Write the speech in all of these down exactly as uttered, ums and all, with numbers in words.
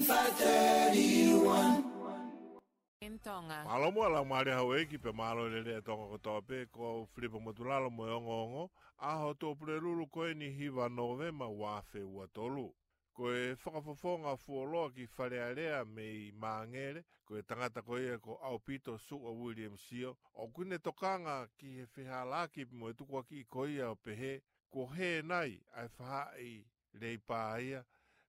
five thirty-one. In Tonga. Mālō muʻa Laumālie Houʻeiki pea mālō e lelei ʻa Tonga kotoa pē, ko au Filipa Motulalo mo e ongoongo, ʻaho Tuʻapulelulu ko eni hiva Nōvema ua afe ua tolu. Ko e fakafofonga fuoloa ki Fale Alea mei Māngere, ko e tangata ko ia ko ʻAupito Suʻa Williams Sio, ʻoku ne tokanga ki he fehālaaki mo e tukuakiʻi ko ia ʻo pehē, kuo hē nai ʻa e faʻahi leʻo paia,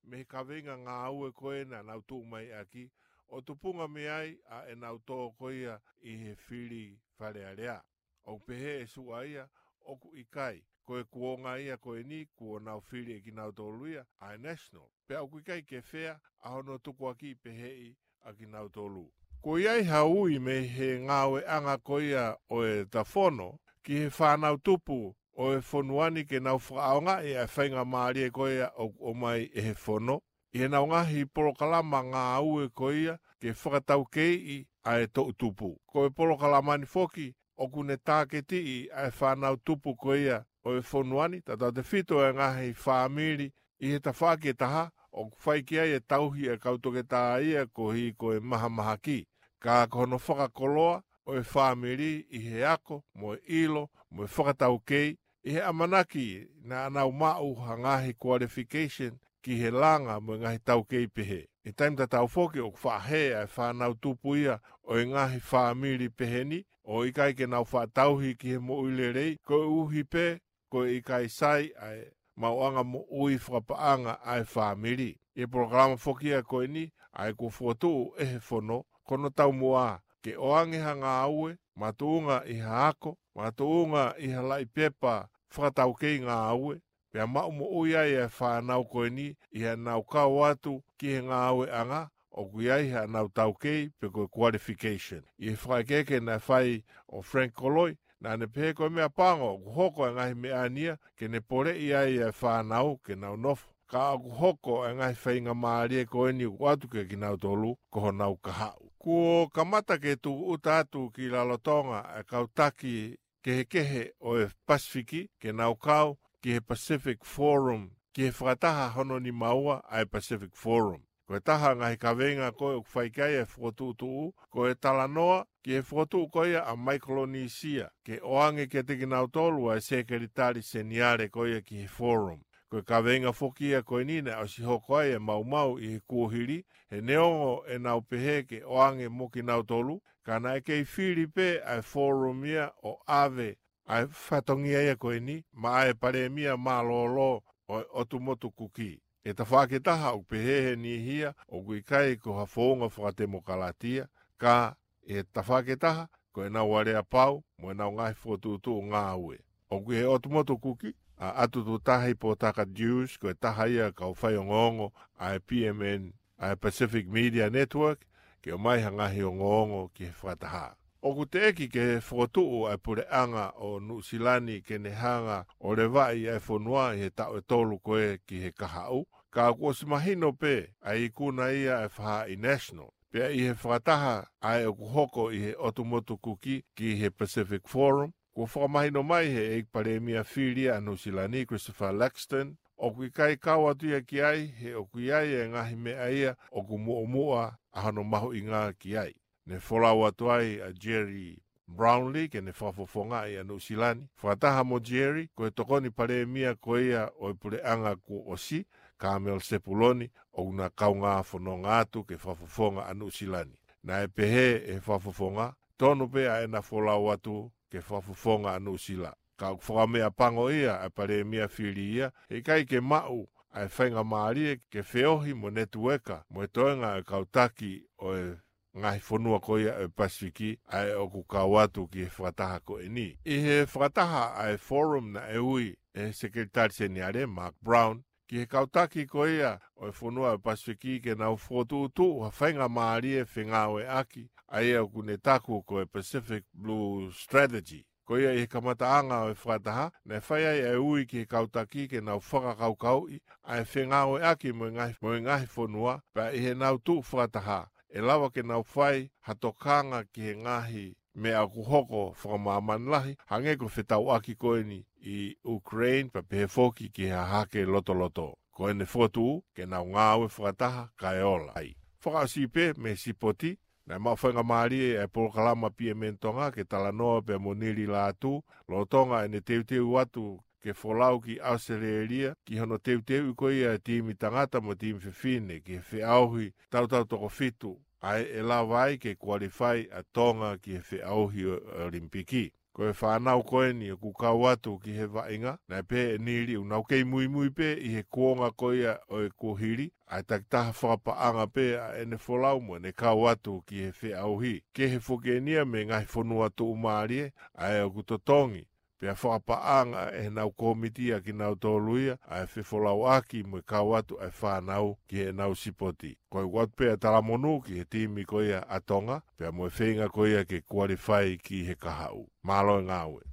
mei he kaveinga ngāue ko ē naʻa nau tuʻu mai ʻaki, ʻo tupunga mei ai ʻa ʻenau tō ko ia ʻi he fili Fale Alea. ʻOku pehē ʻe Suʻa ia, ʻoku ʻikai, ko e kuonga ia ko eni kuo nau fili ʻe kinautolu ia ʻa e National. Pea ʻoku ʻikai ke fea ʻa hono tukuakiʻi peheʻi ʻa kinautolu. Kuo ʻi ai ha ui mei he ngāueʻanga ko ia ʻo e tafono ki he fānau tupu ʻo e fonua ni ke nau fakaʻaongaʻi ʻa e faingamālie ko ia ʻoku ʻomai ʻe he fono ʻi heʻenau ngaahi polokalama ngāue ko ia ke fakataukeiʻi ʻa e toʻutupu. Ko e polokalama ni foki ʻoku ne tāketiʻi ʻa e fānau tupu ko ia ʻo e fonua ni, tautautefito e ngaahi fāmili ʻi he tafaʻaki ʻe taha, ʻoku fai ki ai e tauhi ʻa e kau toketā ia koeʻuhi ko e mahamahaki. Ka ko hono fakakoloa ʻo e fāmili ʻi he ako, mo e ʻilo, mo e fakataukei, ʻi he ʻamanaki naʻa nau maʻu ha ngaahi qualification ki he langa mo e ngaahi taukei pehē. ʻI he taimi tatau foki ʻoku faʻa hē ʻa e fānau tupu ia ʻo e ngaahi fāmili pehē ni, ʻo ʻikai ke nau faʻa tauhi ki he moʻui lelei, koeʻuhi pē ko e ʻikai sai ʻa e maʻuʻanga moʻui fakapaʻanga ʻa e fāmili. ʻI he polokalama foki ia ko eni, ʻa ia kuo fokotuʻu ʻe he fono, ko hono taumuʻa ke ʻoange ha ngāue, makatuʻunga ʻi ha ako, makatuʻunga ʻi ha laʻi pepa fakataukei ngāue, pea maʻu moʻui ai ʻa e fānau ko eni ʻi heʻenau kau atu ki he ngāueʻanga ʻoku ʻi ai haʻanau taukei pe ko e qualification. ʻI he fakaʻekeʻeke naʻe fai ʻo Frank Koloi, naʻa ne pehē ko e meʻapango ʻoku hoko e ngaahi meʻa ni ia ke ne poleʻi ai ʻa e fānau ke nau nofo. Ka ʻoku hoko e ngaahi faingamālie ko eni ʻoku ʻoatu kiate kinautolu ko honau kahaʻu. Kuo kamata ke tūʻuta atu ki Rarotonga ʻa e kau taki kehekehe ʻo e Pasifiki ke nau kau ki he Pacific Forum, ki he fakataha hono nima ua ʻa e Pacific Forum. Ko e taha e ngaahi kaveinga ko ē ʻoku fai ki ai e fokotuʻutuʻu, ko e talanoa ki he fokotuʻu ko ia ʻa Maikolonisia, ke ʻoange kiate kinautolu ʻa e Sekelitali Seniale ko ia ki he Forum. Ko e kaveinga foki ia ko eni naʻe ʻosi hoko ai e maumau ʻi he kuohili, he neongo ʻenau pehē ke ʻoange mo kinautolu, ka naʻe kei fili pē ʻa e Forum ia ʻo ʻave ʻa e fatongia ia ko eni maʻa e Palēmia mālōlō ʻo e ʻOtu Motu Kuki. ʻI he tafaʻaki ʻe taha ʻoku pehē he niʻihi ia ʻoku ʻikai ko ha founga fakatemokalatia, ka ʻi he tafaʻaki ʻe taha ko ʻenau aleapau mo ʻenau ngaahi fokotuʻutuʻu ngāue. ʻOku ʻi he ʻOtu Motu Kuki ʻa ʻAtututahi Potaka Dewes, ko e taha ia e kau faiongoongo ʻa e P M N, ʻa e Pacific Media Network, ke ʻomai ha ngaahi ongoongo ki he fakataha. ʻOku teʻeki ke fokotuʻu ʻa e puleʻanga ʻo Nuʻusila ni ke ne hanga ʻo levaʻi ʻa e fonua ʻi he taʻu ʻe tolu ko ē ki he kahaʻu, ka kuo ʻosi mahino pē ʻa e ikuna ia ʻa e faʻahi National. Pea ʻi he fakataha ʻa ia ʻoku hoko ʻi he ʻOtu Motu Kuki ki he Pacific Forum, kuo fakamahino mai he ʻEiki Palēmia fili ʻa Nuʻusila ni, Christopher Luxon, ʻoku ʻikai kau atu ia ki ai, he ʻoku ʻi ai e ngaahi meʻa ia ʻoku muʻomuʻa ʻa hono mahuʻinga ki ai. Ne folau atu ai ʻa Gerry Brownlee ke ne fakafofongaʻi ʻa Nuʻusila ni. Fakataha mo Gerry, ko e Tokoni Palēmia ko ia ʻo e puleʻanga kuo ʻosi, Kamala Sepuloni, ʻoku na kaungā fononga atu ke fakafofonga ʻa Nuʻusila ni. Naʻe pehē ʻe he fakafofonga, tonu pē ʻa ʻena folau atu ke fakafofonga ʻa Nuʻusila. Ka ʻoku fakameʻapango ia ʻa e Palēmia fili ia, he ʻikai ke maʻu ʻa e faingamālie ke feohi mo e netiueka mo e toenga ʻo e kau taki ʻo e ngaahi fonua ko ia ʻo e Pasifiki ʻa ē ʻoku kau atu ki he fakataha ko eni. ʻI he fakataha ʻa e Forum naʻe ui ʻe he Sekelitali Seniale, Mark Brown, ki he kau taki ko ia ʻo e fonua ʻo e Pasifiki ke nau fokotuʻutuʻu ha faingamālie fengāueʻaki ʻa ia ʻoku ne taku ko e Pacific Blue Strategy. Ko ia ʻi he kamataʻanga ʻo e fakataha, naʻe fai ai e ui ki he kau taki ke nau fakakaukauʻi ʻa e fengāueʻaki mo e ngaahi, mo e ngaahi fonua, pea ʻi heʻenau tuʻu fakataha, ʻe lava ke nau fai ha tokanga ki he ngaahi meʻa ʻoku hoko fakamāmani lahi, hangē ko e fetauʻaki ko eni ʻi Ukraine, pea pehē foki ki he hahake lotoloto. ko ʻene fokotuʻu ke nau ngāue fakataha kae ola ai. Fakaʻosi pē mei he sipoti, naʻe maʻu faingamālie ʻa e polokalama P M N Tonga ke talanoa pea mo Nili Lātū, lolotonga ʻene teuteu atu ke folau ki ʻAositelēlia, ki hono teuteuʻi ko ia e timi tangata mo e timi fefine ki he feʻauhi tautau toko fitu, ʻa ē ʻe lava ai ke kualifai ʻa Tonga ki he feʻauhi ʻo e ʻOlimipiki. Ko e fānau ko eni ʻoku kau atu ki he vaʻinga, naʻe pehē ʻe Nili ʻoku nau kei muimui pē ʻi he kuonga ko ia ʻo e kuohili, ʻa e takitaha fakapaʻanga pē ʻa ʻene folau mo ʻene kau atu ki he feʻauhi. Kehe foki eni ia mei he ngaahi fonua tuʻumālie, ʻa ē ʻoku totongi pea fakapaʻanga ʻe heʻenau kōmiti ʻa kinautolu ia, ʻa e fefolauʻaki mo e kau atu ʻa e fānau ki heʻenau sipoti. Ko e ʻoatu pē ʻa e talamonū ki he timi ko ia ʻa Tonga, pea mo e feinga ko ia ke kualifai ki he kahaʻu. Mālō e ngāue.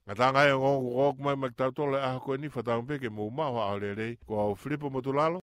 Ngataʻanga e ongoongo kuo ʻomai mai kiate kitautolu he ʻaho ko eni, fakatauange pē ke mou maʻu ha ʻaho lelei, ko au Filipo Motulalo.